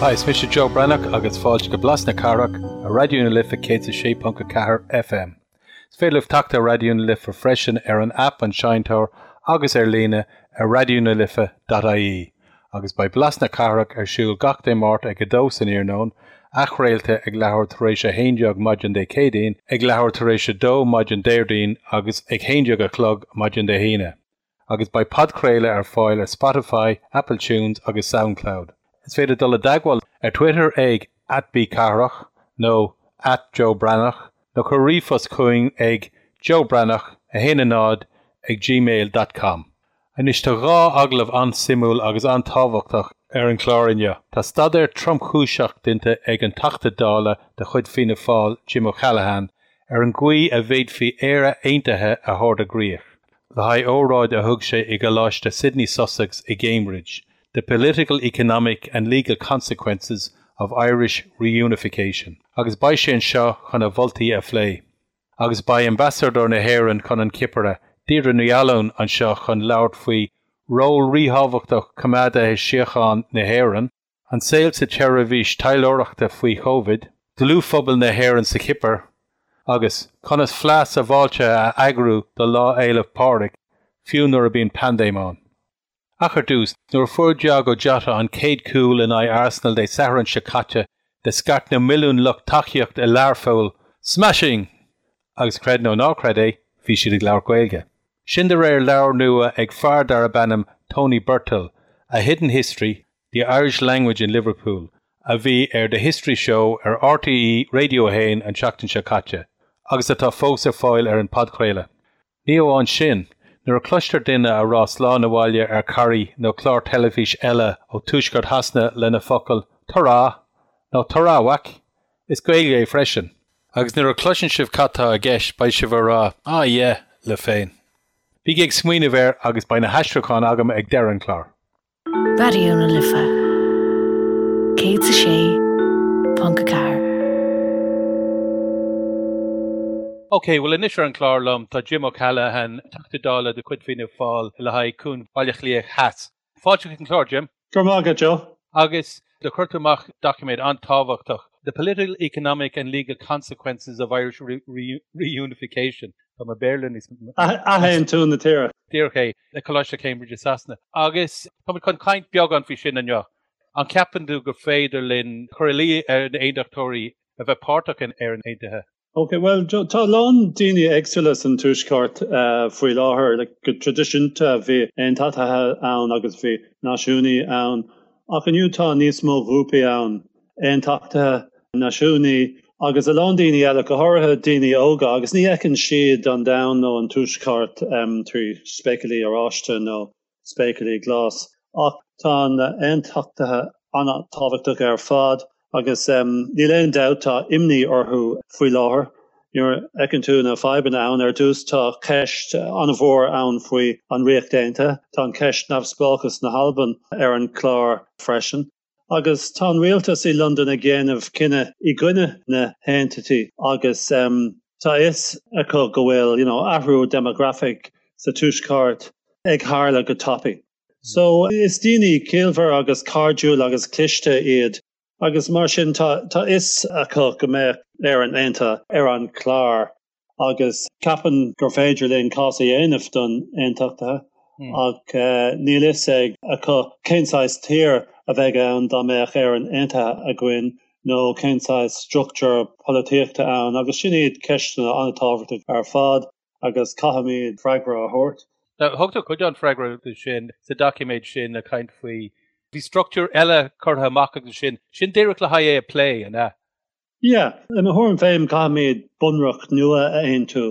Hi, is mise Joe Breathnach agus fáilte go Blas na Cathrach ar Raidió na Life 106.4 FM. Is féidir libh teacht ar Raidió na Life freisin ar an aip An Seinnteoir agus ar líne ar raidionalife.ie. Agus beidh Blas na Cathrach ar siúl gach Dé Máirt ag 2 san iarnóin, athchraolta ag leathuair tar éis 11 maidin Dé Céadaoin, ag leathuair tar éis 2 maidin Déardaoin agus ag 11 a chlog maidin Dé hAoine. Agus beidh podchraoladh ar fáil ar Spotify, Apple Tunes agus Soundcloud. Is féidir dul i dteagmháil ar Twitter ag @bcathrach nó @joebreathnach nó cuir ríomhphost chugainn ag joebreathnach 1 0 ag gmail dot com. Anois tá dhá agallamh an-suimiúil agus an-tábhachtach ar an chlár inniu. Tá staidéar tromchúiseach déanta ag an Teachta Dála de chuid Fianna Fáil, Jim O'Callaghan, ar an gcaoi a bhféadfaí Éire Aontaithe a thabhairt i gcrích, le haghaidh óráid a thug sé i gColáiste Sidney Sussex i gCambridge, The Political, Economic and Legal Consequences of Irish Reunification, agus beidh sé anseo chun a mholtaí a phlé. Agus beidh Ambasadóir na hÉireann chun an Chipire, Deirdre Ní Fhaoláin, anseo chun labhairt faoi ról ríthábhachtach choimeádaithe síochána na hÉireann, an saol sa tseirbhís taidhleoireachta faoi Chovid, dlúthphobal na hÉireann sa Chipir, agus conas fleá sábháilte a eagrú do Lá Fhéile Pádraig, fiú nuair a bíonn paindéim ann. Ach ar dtús, nuair a fuair Diogo Jota an chéad chúl in aghaidh Arsenal Dé Sathairn seo caite, de scairt na milliúin lucht tacaíochta i Learpholl, Smashing! Agus creid nó ná creid é, bhí siad ag labhairt Gaeilge. Sin de réir leabhar nua ag fear darb ainm Tony Birtill, A Hidden History, The Irish Language in Liverpool, a bhí ar The History Show ar RTÉ Radio 1 an tseachtain seo caite, agus atá fós ar fáil ar an podchraoladh. Ní amháin sin, nuair a cloistear duine a rá slán abhaile ar Carrie nó clár teilifíse eile ó tuaisceart Shasana le na focail Ta-ra! nó Ta-ra whack! is Gaeilge é freisin. Agus nuair a chloiseann sibh cad tá i gceist beidh sibh a rá Ah yeah! libh féin. Bígí ag smaoineamh air agus beidh na haistriúcháin agam ag deireadh an chláir. Raidió na Life 106.4. Ok, bhuel anois ar an chlár liom tá Jim O'Callaghan, Teachta Dála de chuid Fianna Fáil le haghaidh Cuan Bhaile Átha Cliath Theas. Fáilte chuig an chlár, Jim. Go raibh maith agat, Joe. Agus do chuir tú amach doiciméad an-tábhachtach, The Political, Economic and Legal Consequences of Irish Reunification. Tá mo Bhéarla níos. Athaontú na tíre. Díreach é, le Coláiste Cambridge i Sasana. Agus táimid chun caint beagán faoi sin inniu. An ceapann tú gur féidir linn cur ina luí ar na hAontachtóirí a bheith páirteach in Éirinn Aontaithe? Ok, bhuel, tá a lán daoine éagsúla san Tuaisceart faoi láthair. Like, go traidisiúnta bhí aontachtaithe ann agus bhí náisiúnaí ann, ach inniu tá níos mó grúpaí ann, aontachtaithe, náisiúnaí agus a lán daoine eile, go háirithe daoine óga, agus ní fheiceann siad an domhan nó an Tuaisceart trí spéaclaí oráiste nó spéaclaí glas. Ach tá na aontachtaithe an-tábhachtach ar fad agus níl aon dabht tá imní orthu faoi láthair. Nuair a fheiceann tú na fadhbanna ann, ar dtús tá ceist an-mhór ann faoi an Ríocht Aontaithe, tá an ceist neamhspleáchas na hAlban ar an chlár freisin. Agus tá an rialtas i Londain ag déanamh cinneadh i gcoinne na haontachtaí agus tá a fhios acu go bhfuil you know athrú déimeagrafach sa tuaisceart ag tharla go tapaidh. So is daoine ciallmhar agus cairdiúil agus cliste iad agus mar sin tá tá a fhios acu go mbeadh Éirinn Aontaithe ar an chlár. agus ceapaim gur féidir linn cás a dhéanamh don aontachtaithe ach níl fhios ag acu cén saghas tír a bheidh ann dá mbeadh Éirinn aontaithe againn nó cén saghas struchtúr polaitíochta ann agus sin iad ceisteanna an-tábhachtach ar fad agus caithfimid freagra a thabhairt. Thug tú cuid den freagra sin sa doiciméad sin ag caint faoi bhí struchtúr eile curtha amach agus sin, sin díreach le haghaidh é a plé, an ea? Yeah, i mo thuairim féin caithfimid bunreacht nua a aontú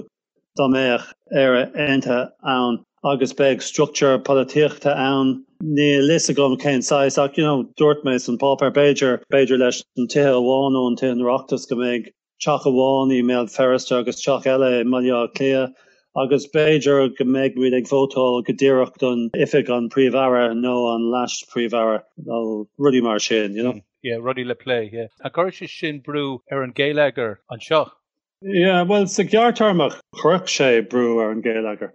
dá mbeadh Éire aontaithe ann agus beidh struchtúr polaitíochta ann. Níl fhios agam cén saghas ach you know dúirt mé san páipéar b'fhéidir, b'fhéidir leis an tithe amháin ó an tithe an Oireachtas go mbeidh teach amháin i mBéal Feirste agus teach eile i mBaile Átha Cliath agus b'fhéidir go mbeidh muid ag vótáil go díreach don oifig an Príomh-Aire nó an Leas-Phríomh-Aire nó rudaí mar sin, you know. Yeah, rudaí le plé, yeah. An gcuirfidh sé sin brú ar an gheilleagar anseo? Yeah, bhuel, sa ghearrtéarma chuirfeadh sé brú ar an gheilleagar.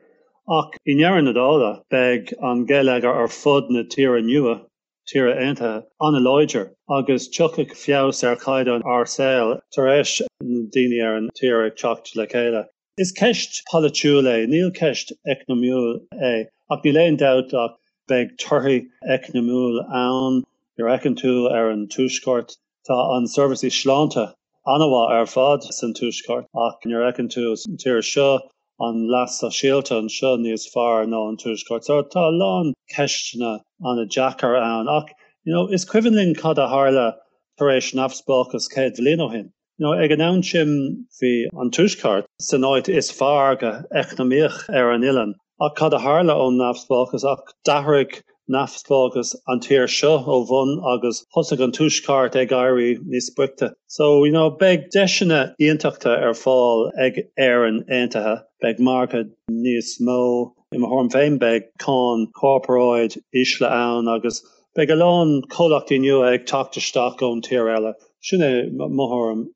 Ach i ndeireadh na dála, beidh an geilleagar ar fud na tíre nua. tíre aontaithe an-láidir agus tiocfaidh feabhas ar chaighdeán ár saol tar éis na daoine ar an tír ag teacht le chéile. Is ceist polaitiúil é, níl ceist eacnamaíoch é, ach níl aon dabht ach beidh torthaí eacnamaíoch ann. Nuair a fheiceann tú ar an Tuaisceart, tá an seirbhísí sláinte an-mhaith ar fad san Tuaisceart ach nuair a fheiceann tú an tír seo, an leas sóisialta anseo níos fearr ná an Tuaisceart. So tá a lán ceisteanna an-deacair ann ach you know is cuimhin linn cad a tharla tar éis neamhspleáchas 100 bhliain ó shin. You know ag an am sin bhí an Tuaisceart san áit is fearr go eacnamaíoch ar an oileán ach cad a tharla ón neamhspleáchas ach d'athraigh neamhspleáchas an tír seo ó bhun agus thosaigh an Tuaisceart ag éirí níos boichte. So, you know, beidh deiseanna iontacha ar fáil ag Éirinn Aontaithe, beidh margadh níos mó, i mo thuairim féin beidh cáin corparáid ísle ann agus beidh a lán comhlachtaí nua ag teacht isteach ón tír eile. Sin é mo thuairim.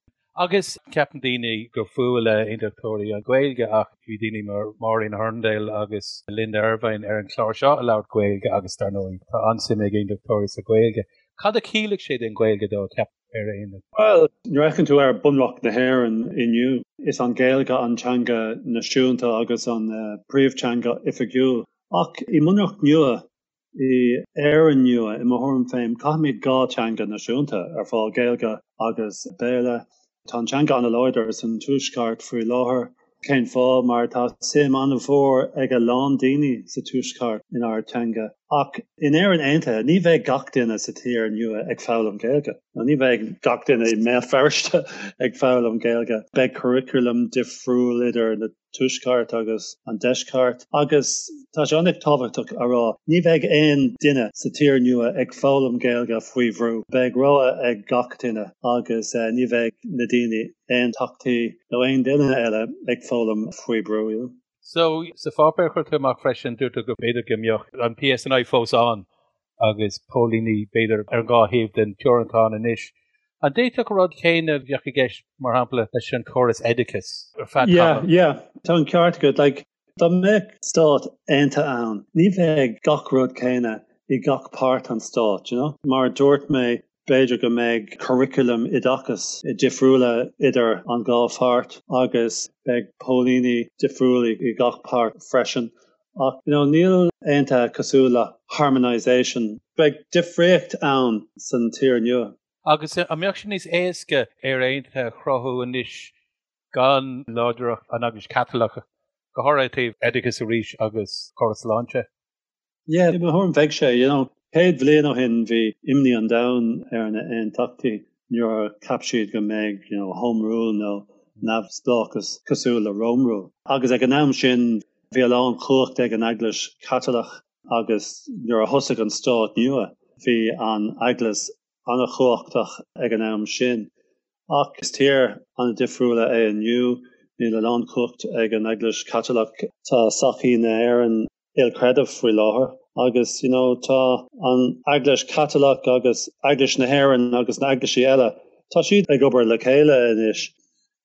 Agus ceapann daoine gur fuath le aontachtóirí an Ghaeilge ach bhí daoine mar Maureen Hurndall agus Linda Ervine ar an chlár seo a labhairt Gaeilge agus dar ndóigh tá an-suim ag aontachtóirí sa Ghaeilge. Cad a chiallaigh sé don Ghaeilge dó, ceap ar aon Bhuel, nuair a fheiceann tú ar Bunreacht na hÉireann inniu, is an Ghaeilge an teanga náisiúnta agus an príomhteanga oifigiúil. Ach i mBunreacht nua, I Éirinn nua, i mo thuairim féin, caithfimid 2 teanga náisiúnta ar fáil, Gaeilge agus Béarla. Tá an teanga an-láidir san Tuaisceart faoi láthair. Cén fáth? Mar tá suim an-mhór ag a lán daoine sa Tuaisceart inár teanga. Ach in Éirinn Aontaithe, ní bheidh gach duine sa tír nua ag foghlaim Gaeilge. Nó ní bheidh gach duine i mBéal Feirste ag foghlaim Gaeilge. Beidh curriculum difriúil idir na Tuaisceart agus an Deisceart, agus tá sé an-tábhachtach a rá, ní bheidh aon duine sa tír nua ag foghlaim Gaeilge faoi bhrú. Beidh rogha ag gach duine agus ní bheidh na daoine aontachtaí nó aon duine eile ag foghlaim faoi brú. So, sa pháipéar a chuir tú amach freisin, dúirt tú go b'fhéidir go mbeadh an PSNI fós ann agus póilíní b'fhéidir ar an dhá thaobh den teorainn atá ann anois. An d'fhéadfadh an rud céanna a bheadh i gceist, mar shampla, leis an chóras oideachais ar feadh tamaill? Yeah, yeah, tá an ceart agat. Like, dá mbeadh stát aontaithe ann, ní bheidh gach rud céanna i gach páirt an stáit, you know? Mar a dúirt mé, b'fhéidir go mbeidh curriculum oideachais difriúla idir an dhá pháirt agus beidh póilíní difriúla i gach páirt freisin. Ach, you know, níl aontaithe cosúil le harmonisation. Beidh difríocht ann san tír nua. Agus an mbeadh sé níos éasca Éire Aontaithe a chruthú anois gan láidreacht an Eaglais Chaitliceach, go háirithe taobh oideachais arís agus córas sláinte? Yeah, i mo thuairim bheadh sé, you know. 100 bhliain ó shin bhí imní an domhain ar na aontachtaí nuair a cheap siad go mbeidh, you know, home rule nó neamhspleáchas cosúil le Rome rule. Agus ag an am sin bhí a lán chumhacht ag an Eaglais Chaitliceach agus nuair a thosaigh an stát nua bhí an Eaglais an-chumhachtach ag an am sin. Ach is tír an-difriúla é inniu, níl a lán chumhacht ag an Eaglais Chaitliceach. Tá sochaí na hÉireann ilchreidimh faoi láthair agus you know tá an Eaglais Chaitliceach agus Eaglais na hÉireann agus na eaglaisí eile, tá siad ag obair le chéile anois.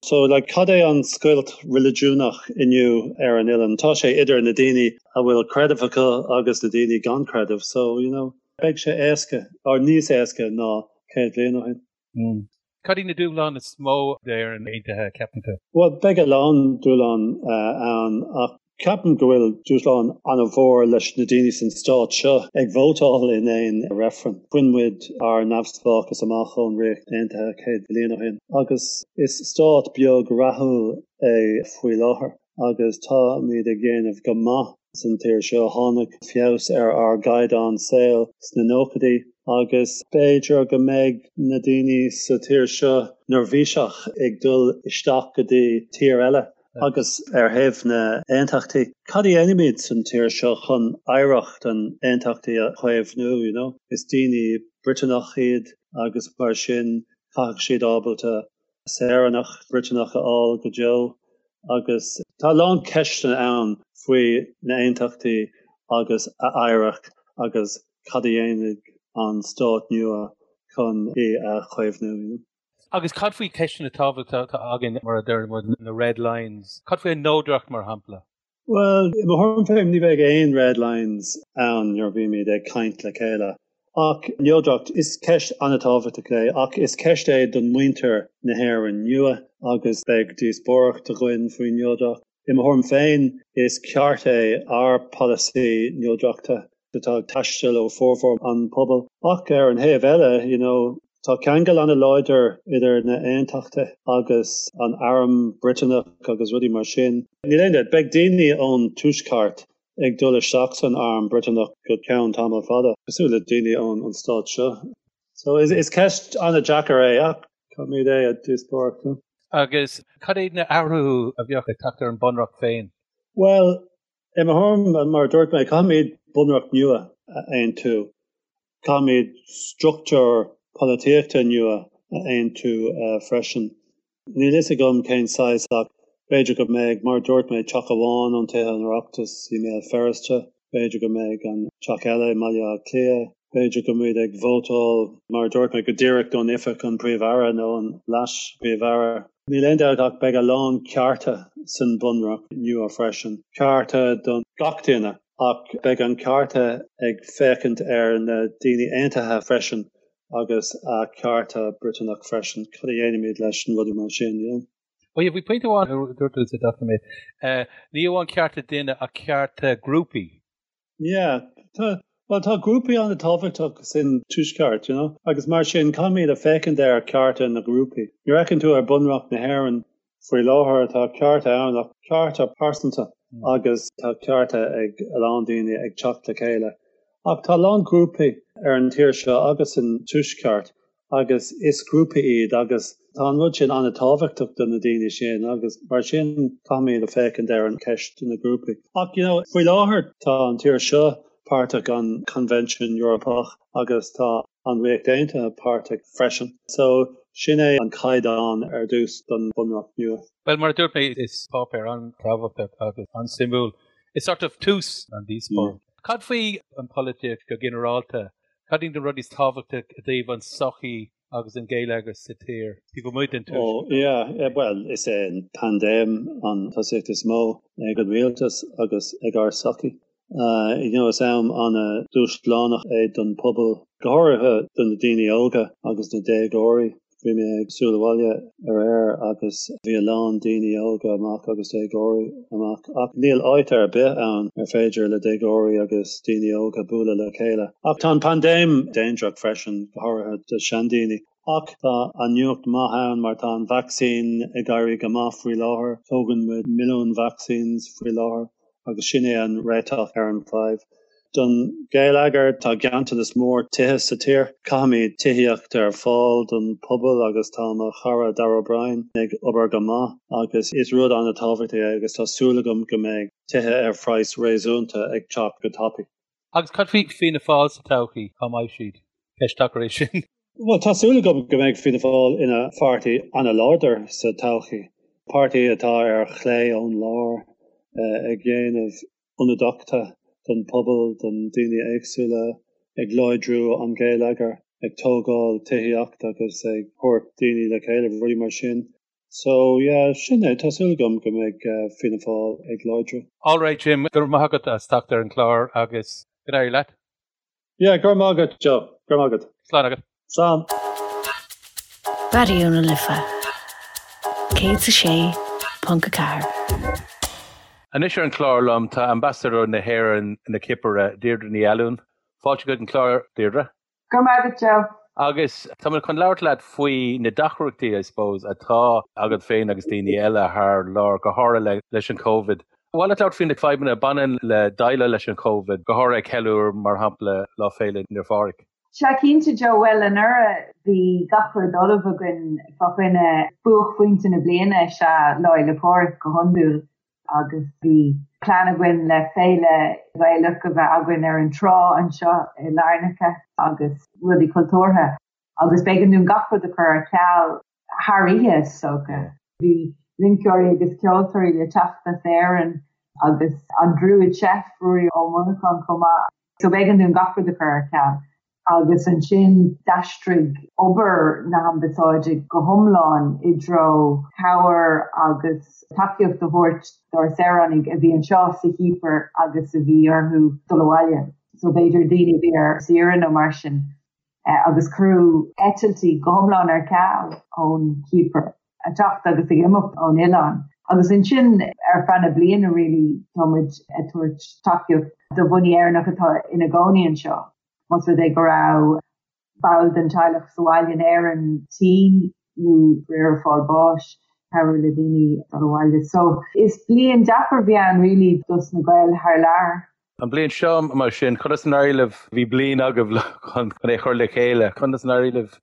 So like cad é an scoilt reiligiúnach inniu ar an oileán? Tá sé idir na daoine a bhfuil creideamh acu agus na daoine gan creideamh. So you know beidh sé éasca, or níos éasca ná 100 bliain ó shin. Cad iad na dúshláin is mó d'Éirinn Aontaithe, ceapann tú? Bhuel, beidh a lán dúshlán ann ach ceapaim go bhfuil dúshlán an-mhór leis na daoine san stát seo ag vótáil in aon reifreann. Bhain muid ár neamhspleáchas amach ón Ríocht Aontaithe 100 bliain ó shin agus is stát beag rathúil é faoi láthair. agus táimid ag déanamh go maith san tír seo. Tháinig feabhas ar ár gcaighdeán saoil sna nóchaidí agus b'fhéidir go mbeidh na daoine sa tír seo neirbhíseach ag dul isteach go dtí tír eile. Agus ar thaobh na aontachtaí, cad a dhéanfaimid san tír seo chun oidhreacht an aontachtaí a chaomhnú, you know? Is daoine Briotanach iad agus mar sin caithfidh siad ábalta saoránacht Bhriotanach a fháil go deo agus tá a lán ceisteanna ann faoi na aontachtaí agus a oidhreacht agus cad a dhéanfaidh an stát nua chun í a chaomhnú. Agus cad faoi ceisteanna tábhachtacha atá againn, mar a deir muid, na red lines? Cad faoi an neodracht, mar shampla? Bhuel, i mo thuairim féin, ní bheidh aon red lines ann nuair a bhímid ag caint le chéile. Ach neodracht, is ceist an-tábhachtach é, ach is ceist é don muintir na hÉireann nua agus beidh díospóireacht againn faoin neodracht. I mo thuairim féin, is ceart é ár polasaí neodrachta atá ag taisteal ó formhór an pobail. Ach ar an thaobh eile, you know, tá ceangal an-láidir idir na aontachtaithe agus an arm Briotanach agus rudaí mar sin. Níl aon dabht, beidh daoine ón tuaisceart ag dul isteach san arm Briotanach go ceann tamall fada, cosúil le daoine ón an stát seo. So is is ceist an-deacair é ach caithfimid é a díospóireacht. Agus cad iad na athruithe a bheadh ag teacht ar an bunreacht féin? Bhuel, i mo thuairim, mar a dúirt mé, caithfimid bunreacht nua a aontú. Caithfimid struchtúr polaitíochta nua a aontú freisin. Níl fhios agam cén saghas ach b'fhéidir go mbeidh, mar a dúirt mé, teach amháin ón Tithe an Oireachtais i mBéal Feirste, b'fhéidir go mbeidh an teach eile i mBaile Átha Cliath, b'fhéidir go mbeimid ag vótáil, mar a dúirt mé, go díreach don oifig an Príomh-Aire nó an Leas-Phríomh-Aire. Níl aon dabht ach beidh a lán cearta san Bunreacht nua freisin, cearta don gach duine ach beidh an cearta ag féachaint ar na daoine aontaithe freisin agus a cearta Briotanach freisin. Cad a dhéanaimid leis na rudaí mar sin, you know? Bhuel, bhí pointe amháin a dúirt tú sa doiciméad, ní amháin cearta duine ach cearta grúpaí. Yeah, tá, bhuel tá grúpaí an-tábhachtach san Tuaisceart, you know, agus mar sin caithfimid a féachaint ar cearta na grúpaí. Nuair a fheiceann tú ar Bunreacht na hÉireann faoi láthair tá cearta ann ach cearta pearsanta agus tá cearta ag a lán daoine ag teacht le chéile. Ach tá a lán grúpaí ar an tír seo agus san Tuaisceart agus is grúpaí iad agus tá an rud sin an-tábhachtach do na daoine sin agus mar sin caithfimid a féachaint ar an ceist na grúpaí. Ach you know faoi láthair tá an tír seo páirteach an Convention Eorpach agus tá an Ríocht Aontaithe páirteach freisin. So sin é an caighdeán ar dtús don Bhunreacht nua. Bhuel, mar a dúirt mé, is páipéar an-tábhachtach agus an-suimiúil. Is sort of tús an díospóireacht. Cad faoi an pholaitíocht go ginearálta? Cad iad na rudaí is tábhachtaí i dtaobh an sochaí agus an geilleagar sa tír, taobh amuigh den tuaisceart? Oh, yeah, bhuel, is é an paindéim an tosaíocht is mó ag an rialtas agus ag ár sochaí. You know, is am an-dúshlánach é don pobal, go háirithe do na daoine óga agus na déagóirí. Bhí mé ag siúl abhaile aréir agus bhí a lán daoine óga amach agus déagóirí amach ach níl áit ar bith ann ar féidir le déagóirí agus daoine óga bualadh le chéile. Ach tá an paindéim dainséarach freisin, go háirithe do seandaoine. Ach tá an nuacht maith ann mar tá an vacsaín ag éirí go maith faoi láthair. Tógann muid milliún vaccines faoi láthair. agus sin é an réiteach ar an bhfadhb. Don gheilleagar, tá ganntanas mór tithe sa tír. Caithfimid tithíocht ar fáil don pobal agus tá mo chara Darragh O'Brien ag obair go maith agus is rud an-tábhachtach é agus tá súil agam go mbeidh tithe ar phraghas réasúnta ag teacht go tapaidh. Agus cad faoi Fianna Fáil sa todhchaí? Cá mbeidh siad? Ceist deacair é sin. Bhuel, tá súil agam go mbeidh Fianna Fáil ina pháirtí an-láidir sa todhchaí. Páirtí atá ar chlé ón lár, ag déanamh ionadaíochta don pobal, don daoine éagsúla, ag láidriú an geilleagar, ag tógáil tithíocht agus ag thabhairt daoine le chéile, rudaí mar sin. So, yeah, sin é, tá súil agam go mbeidh Fianna Fáil ag láidriú. Alright Jim, go raibh maith agat as teacht ar an chlár agus go n-éirí leat. Yeah, go raibh maith agat, Joe. Go raibh maith agat. Slán agat. Slán. Raidió na Life 106.4. Anois ar an chlár liom tá Ambasadóir na hÉireann na Cipire, Deirdre Ní Fhallúin. Fáilte chuig an chlár, Deirdre. Go raibh maith agat, Joe. Agus tá mé chun labhairt leat faoi na deacrachtaí, I suppose, atá agat féin agus daoine eile thar lear, go háirithe leis an Covid. Ba mhaith leat labhairt faoi na fadhbanna a bhaineann le déileáil leis an Covid, go háirithe ag ceiliúradh, mar shampla, Lá Féile Naomh Phádraig. Sea, cinnte, Joe. Bhuel, anuraidh bhí gach rud ullamh againn fá choinne buaicphointe na bliana, is ea Lá Fhéile Pádraig go hiondúil, agus bhí plean againn le féile Ghaelach a bheith againn ar an trá anseo i Larnaca agus rudaí cultúrtha agus b'éigean dúinn gach rud a chur ar ceal. thar oíche is dócha. Bhí rinceoirí agus ceoltóirí le teacht as Éirinn agus an Druid Chef, Ruairí Ó Monacháin chomh maith. So b'éigean dúinn gach rud a chur ar ceal. Agus ansin d'aistrigh obair na hAmbasáide go hiomlán i dtreo cabhair agus tacaíocht a thabhairt dár saoránaigh a bhí anseo sa Chipir agus a bhí orthu dul abhaile. So b'fhéidir daoine a bhí ar saoire nó mar sin. Agus cuireadh eitiltí go hiomlán ar ceal ón Chipir, ag teacht agus ag imeacht ón oileán. Agus ansin ar feadh na bliana really tá muid ag tabhairt tacaíocht do dhaoine Éireannach atá ina gcónaí anseo. Más rud é go raibh ball den teaghlach sa bhaile in Éirinn tinn nó ag fáil bháis, cabhrú le daoine dul abhaile. So is bliain deacair a bhí ann really dos na Gaeil thar lear. An bhliain seo mar sin, conas a d'éirigh libh, bhí bliain agaibh chun é a chur le chéile, conas a d'éirigh libh?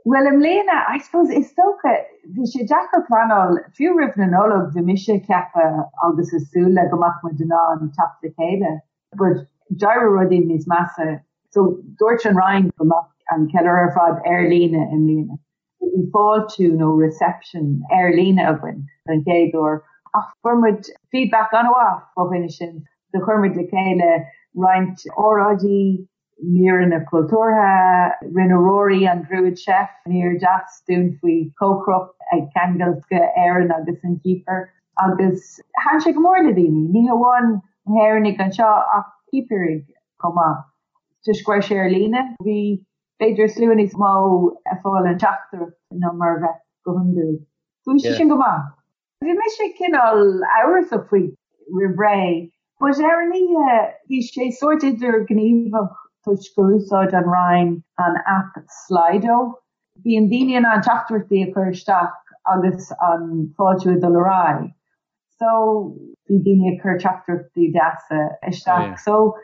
Bhuel i mbliana, I suppose, is dócha, bhí sé deacair pleanáil, fiú roimh na Nollag bhí mise ag ceapadh agus ag súil le go mbeadh muid in ann teacht le chéile. But d'éirigh rudaí níos measa. So dúirt an Roinn go mbeadh an ceiliúradh ar fad ar líne i mbliana. So bhí fáiltiú nó reception ar líne againn don chéad uair. Ach fuair muid feedback an-mhaith fá choinne sin. So chuir muid le chéile roinnt óráidí, míreanna cultúrtha, rinne Rory an Druid Chef mír deas dúinn faoi chócaireacht ag ceangal Éireann agus an Chipir. Agus thaitin sé go mór le daoine, ní hamháin na hÉireannaigh anseo ach Cipirigh chomh maith. Toisc go raibh sé ar líne, bhí b'fhéidir slua níos mó ag fáil an teachtaireacht ná mar a bheadh go hiondúil. So bhí sé sin go maith. Bhí mise cineál amhrasach faoi roimh ré, but ar an oíche bhí sé sórt idirghníomhach toisc gur úsáid an Roinn an aip Slido. Bíonn daoine in ann teachtaireachtaí a chur isteach agus an fáiltiú ag dul ar aghaidh. So bhí daoine ag cur teachtaireachtaí deasa isteach. So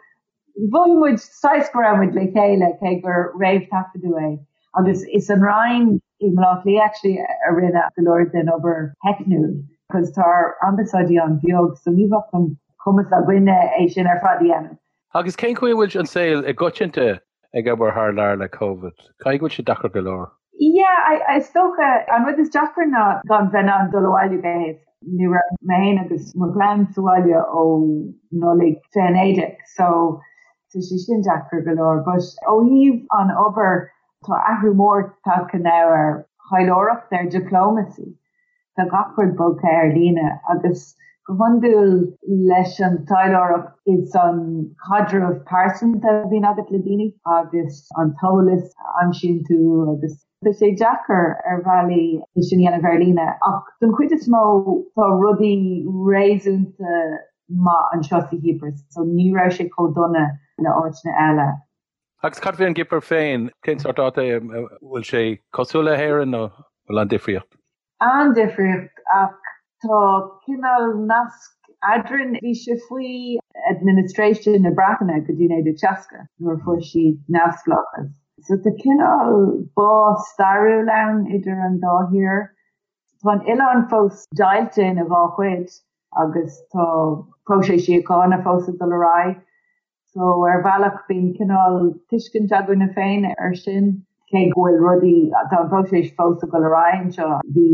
mhothaigh muid saghas go raibh muid le chéile cé gur réamh-taifeadadh é. Agus is an Roinn i mBaile Átha Cliath actually a rinne go leor den obair theicniúil because tá ár ambasáidí an-bheag so ní bheadh an cumas againne é sin ar fad a dhéanamh. Agus cén chaoi a bhfuil an saol i gcoitinnte ag obair thar lear le Covid? Caithfidh go bhfuil sé deacair go leor. Yeah, I, is dócha, an rud is deacra ná gan bheith in ann dul abhaile go héasca. Ní raibh mé féin agus mo chlann sa bhaile ó Nollaig 2019, so tá sé sin deacair go leor. But ó thaobh an obair, tá athrú mór tagtha now ar thaidhleoireacht, ar diplomacy. Tá gach rud bogtha ar líne agus go hiondúil leis an taidhleoireacht is an caidreamh pearsanta a bhíonn agat le daoine agus an t-eolas a aimsíonn tú agus tá sé deacair ar bhealaí é sin a dhéanamh ar líne ach don chuid is mó tá rudaí réasúnta maith anseo sa Chipir so ní raibh sé chomh dona le áiteanna eile. Agus cad faoi an gCipir féin? Cén sórt áit é? An bhfuil sé cosúil le hÉirinn nó bhfuil an-difríocht? An-difríocht ach tá cineál nasc eadrainn. Bhí sé faoi administration na Breataine go dtí 1960 nuair a fuair siad neamhspleáchas. So tá cineál bá stairiúil ann idir an dá thír. Tá an oileán fós deighilte ina dhá chuid agus tá próiseas síochána fós ag dul ar aghaidh. So ar bhealach bíonn cineál tuiscint againne féin ar sin, cé go bhfuil rudaí, tá an próiseas fós ag dul ar aghaidh anseo. Bhí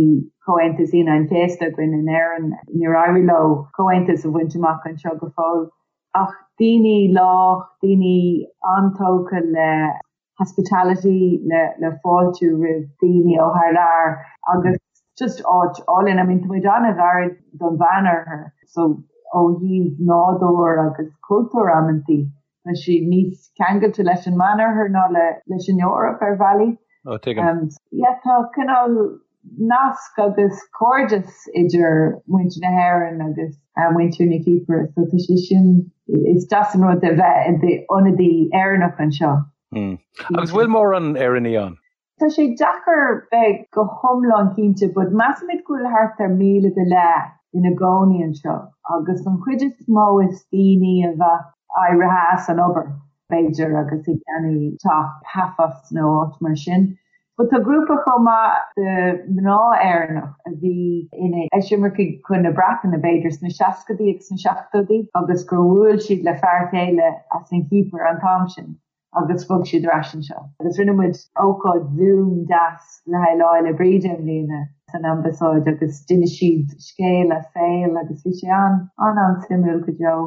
Comhaontas Aoine an Chéasta againn in Éirinn, níor éirigh leo comhaontas a bhaint amach anseo go fóill. Ach daoine lách, daoine an-tógtha le hospitality, le fáiltiú roimh daoine ó thar lear agus just áit álainn. I mean tá muid an-ghairid don Mheánoirthear so ó thaobh nádúr agus cultúr amantaí tá sé níos ceangailte leis an Meánoirthear ná leis an Eoraip ar bhealaí. Oh, tuigim. Yeah, tá cineál nasc agus cairdeas idir muintir na hÉireann agus muintir na Cipire so tá sé sin, is deas an rud a bheith i d'ionadaí Éireannach anseo. Agus bhfuil mórán Éireannaigh ann? Tá sé deacair bheith go hiomlán cinnte but measaimid go bhfuil thart ar 1,000 go leith ina gcónaí anseo agus an chuid is mó is daoine a bheadh éirithe as an obair b'fhéidir agus ag ceannach teach Paphos nó áit mar sin. But tá grúpa chomh maith de mná Éireannach a bhí ina eisimircigh chun na Breataine b'fhéidir sna seascadaí agus sna seachtóidí agus gur bhuail siad le fear chéile as an Chipir an t-am sin agus bhog siad ar ais anseo. Agus rinne muid ócáid Zoom deas le haghaidh Lá Fhéile Bríde i mbliana san Ambasáid agus d'inis siad scéal a saoil agus bhí sé an an-an-suimiúil go deo.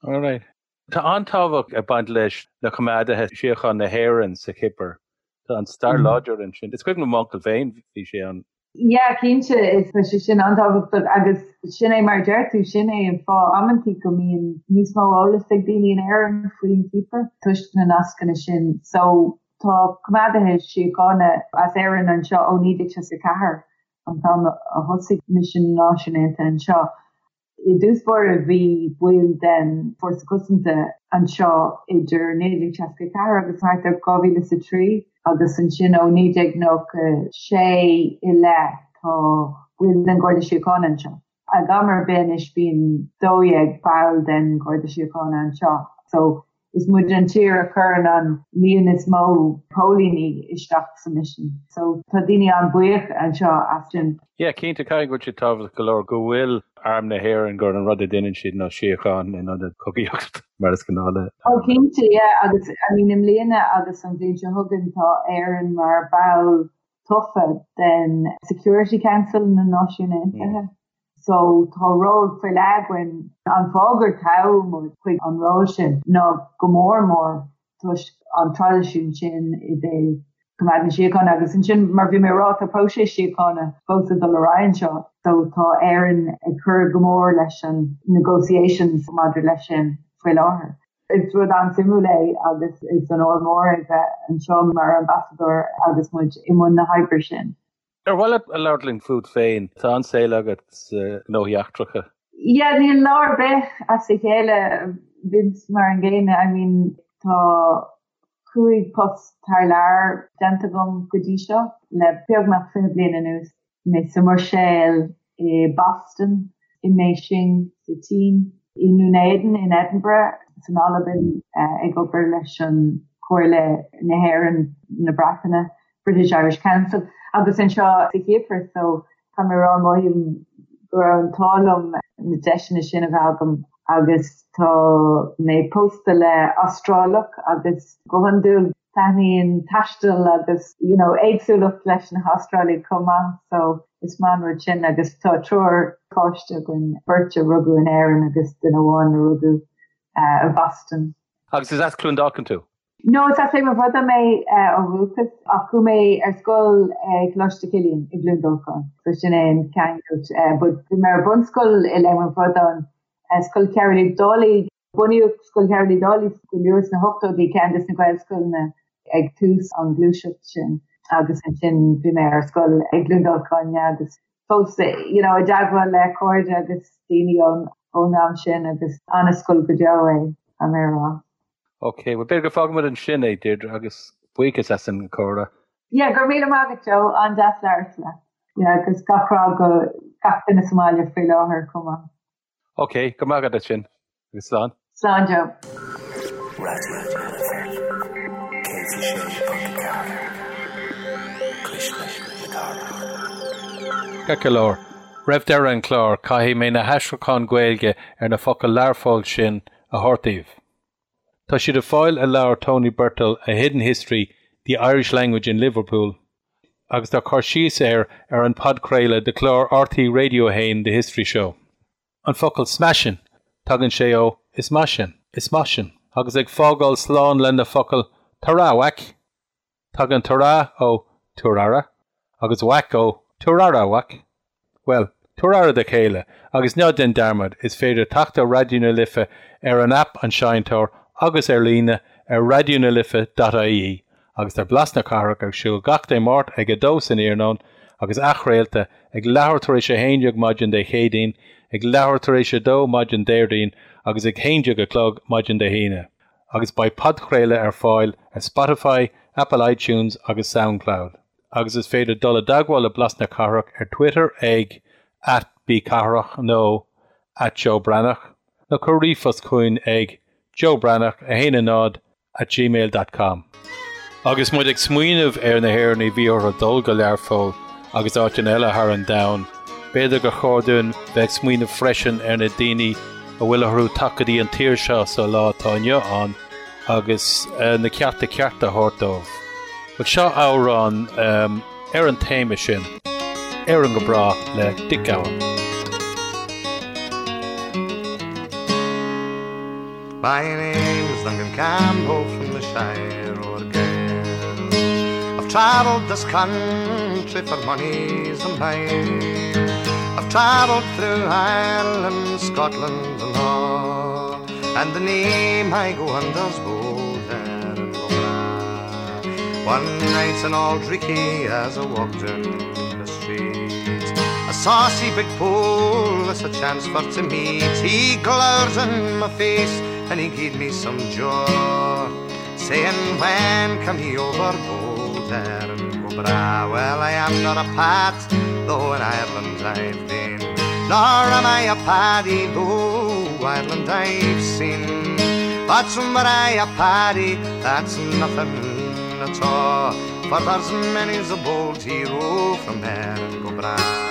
Alright. Tá an-tábhacht ag baint leis na coimeádaithe síochána na hÉireann sa Chipir. Tá an stair láidir ansin. Is cuimhin liom m'uncail féin, bhí sé ann. Yeah, cinnte, is tá sé sin an-tábhachtach agus sin é mar a deir tú, sin é an fáth amantaí go mbíonn níos mó eolas ag daoine in Éirinn faoin Chipir toisc na nascanna sin. So tá coimeádaithe síochána as Éirinn anseo ó 1964, an t-am a thosaigh misean na Náisiún Aontaithe anseo. I dtús báire bhí baill den Fórsa Cosanta anseo idir 1964 agus thart ar 2003 agus ansin ó 1996 i leith tá baill den Gharda Síochána anseo. Ag am ar bith anois bíonn 12 ball den Gharda Síochána anseo so Is muid an tír a chuireann an líon is mó póilíní isteach sa misean. So tá daoine an-bhuíoch anseo as sin. Yeah, cinnte, caithfidh go bhfuil sé tábhachtach go leor go bhfuil Arm na hÉireann, gur an rud a dhéanann siad ná síocháin in ionad cogaíocht, mar is gnáth le. Oh cinnte, yeah, agus I mean i mbliana agus an bhliain seo chugainn tá Éirinn mar ball tofa den Security Council na Náisiún Aontaithe. So tá ról faoi leith againn. An fáth gur toghadh muid chuig an ról sin ná go mór mór toisc an traidisiún sin i dtaobh coimeád na síochána agus ansin mar bhí mé ag rá tá próiseas síochána fós ag dul ar aghaidh anseo so tá Éirinn ag cur go mór leis an negotiations maidir leis sin faoi láthair. Is rud an-suimiúil é agus is onóir mór é bheith anseo mar ambasadóir agus muid i mbun na hoibre sin. Ar mhaith leat a labhairt linn fút féin? Tá an-saol agat sna gnóthaí eachtracha. Yeah, níl lá ar bith as a chéile, bíonn mar an gcéanna. I mean, tá 5 post thar lear déanta agam go dtí seo le beagnach 20 bliain anuas. Mé sa mBruiséil, i Boston, i mBeijing sa tSín, i nDún Éideann in Edinburgh, san Albain ag obair leis an Chomhairle na hÉireann, na Breataine, British Irish Council, agus anseo sa Chipir so tá mé ag rá mothaím go raibh an t-ádh liom na deiseanna sin a bheith agam agus tá mé pósta le Astrálach agus go hiondúil taitníonn taisteal agus you know éagsúlacht leis na hAstrálaigh chomh maith so is maith an rud sin agus tá triúr páiste againn, beirt a rugadh in Éirinn agus duine amháin a rugadh i Boston. Agus is as Cluain Dolcáin tú? No, is as Léim an Bhradáin mé ó dhúchas ach chuaigh mé ar scoil ag Coláiste Chilliain i gCluain Dolcáin so sin é an ceangal. But bhí mé ar bunscoil i Léim an Bhradáin, Scoil Chearúil Uí Dálaigh. Bunaíodh Scoil Chearúil Uí Dálaigh go luath sna hochtóidí, ceann de na Gaelscoileanna ag tús an ghluaiseacht sin agus ansin bhí mé ar scoil i gCluain Dolcáin agus fós you know i dteagmháil le cairde agus daoine ón ón am sin agus an-scoil go deo é, tá mé a rá. Ok, bhuel b'fhéidir go bhfágfaimid ansin é Deirdre agus buíochas as an gcomhrá. Yeah, go raibh míle maith agat Joe, an-deas labhairt leat. Yeah, agus gach rath go gach duine sa mbaile faoi láthair chomh maith. Ok, go raibh maith agat as sin, agus slán. Slán Joe. Raidió na Life 106.4 Cuisle na Cathrach. Ceart go leor, roimh deireadh an chláir, caithfidh mé na haistriúcháin Ghaeilge ar na focail Learpholl sin a thabhairt daoibh. Tá siad ar fáil i leabhar Tony Birtill A Hidden History, The Irish Language in Liverpool agus tá cur síos air ar an podchraoladh de chlár RTÉ Radio 1 The History Show. An focal smashing, tagann sé ó is maith sin, is maith sin. Agus ag fágáil slán le na focail ta-ra whack! Tagann ta-ra ó tabhair aire agus whack ó tabhair aire, a mhac. Bhuel, tabhair aire do chéile agus ná déan dearmad, is féidir teacht ar Raidió na Life ar an aip An Seinnteoir agus ar líne ar raidionalife.ie agus tá Blas na Cathrach ar siúl gach Dé Máirt ag 2 san iarnóin agus athchraolta ag leathuair tar éis 11 maidin Dé Céadaoin, ag leathuair tar éis 2 maidin Déardaoin agus ag 11 a chlog maidin Dé hAoine. agus beidh podchraoladh ar fáil ar Spotify, Apple iTunes agus Soundcloud. Agus is féidir dul i dteagmháil le Blas na Cathrach ar Twitter ag @bcathrach nó @joebreathnach nó cuir ríomhphost chugainn ag joebreathnach 1 0 @gmail dot com. Agus muid ag smaoineamh ar na hÉireannaigh a bhí orthu dul go Learpholl agus áiteanna eile thar an domhan, b'fhéidir gur chóir dúinn bheith ag smaoineamh freisin ar na daoine a bhfuil orthu teacht go dtí an tír seo sa lá atá inniu ann agus na cearta cearta a thabhairt dóibh. Bhuel, seo amhrán ar an téama sin, Éirinn go Bráth le Dick Gowan. My name is Duncan Campbell from the Shire o' Argyll. travelled this country for mony's a mile. I've travelled through Ireland, Scotland and all, and the name I go under's bold Erin go bragh. One night in Auld Reekie as I walked down the street, a saucy big polis I chanced for to meet. He glowered in my face and he gave me some jaw, saying, when come ye over, bold Erin go bragh? Well, I am not a pat, though in Ireland I've been, nor am I a paddy, though Ireland I've seen. But were I a paddy, that's nothing at all, for there's many's a bold hero from Erin go bragh.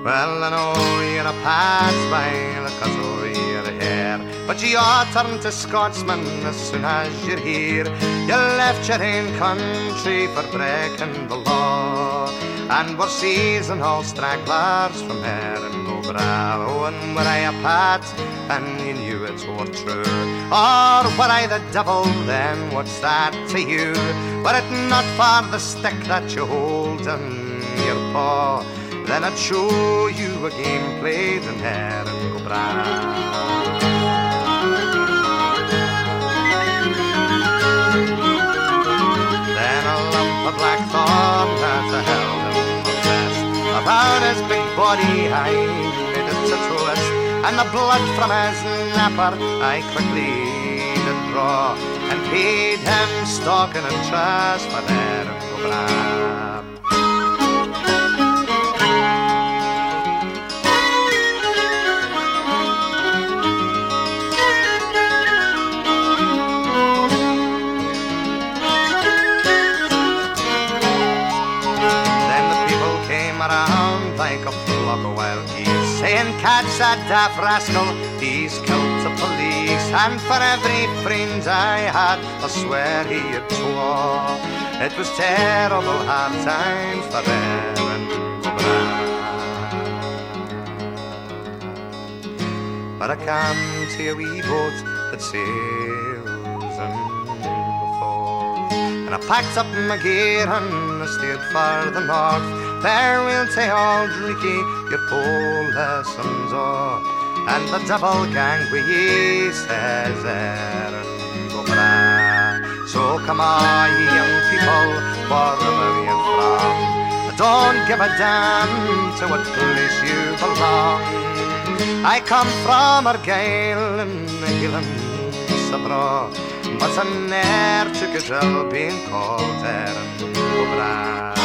Well, I know you're a pat by the cut of your hair, but you are turned to Scotsman as soon as you're here. You left your own country for breaking the law, and were seizing all stragglers from Erin go bragh. Oh, and were I a pat, and you knew it were true, or were I the devil, then what's that to you? Were it not for the stick that you hold in your paw, then I'd show you a game played in Erin go bragh. Then a lump of blackthorn that I held in my fist, around his big body I made it to twist, and the blood from his napper I quickly did draw, and paid him stock and interest for Erin go bragh. Like a flock of wild geese, saying, catch that daft rascal, he's killed the police. And for every friend I had, I swear he had twa. It was terrible hard times for Erin go bragh. But I come to a wee boat that sails in the fog, and I packed up my gear and I steered for the north. Farewell to Auld Reekie, your polis and all, and the devil gang wi' ye, says Erin go bragh. So come on, ye young people, wherever you're from, don't give a damn to what place you belong. I come from Argyll in the Highlands abroad, but I ne'er took a drill being called Erin go bragh.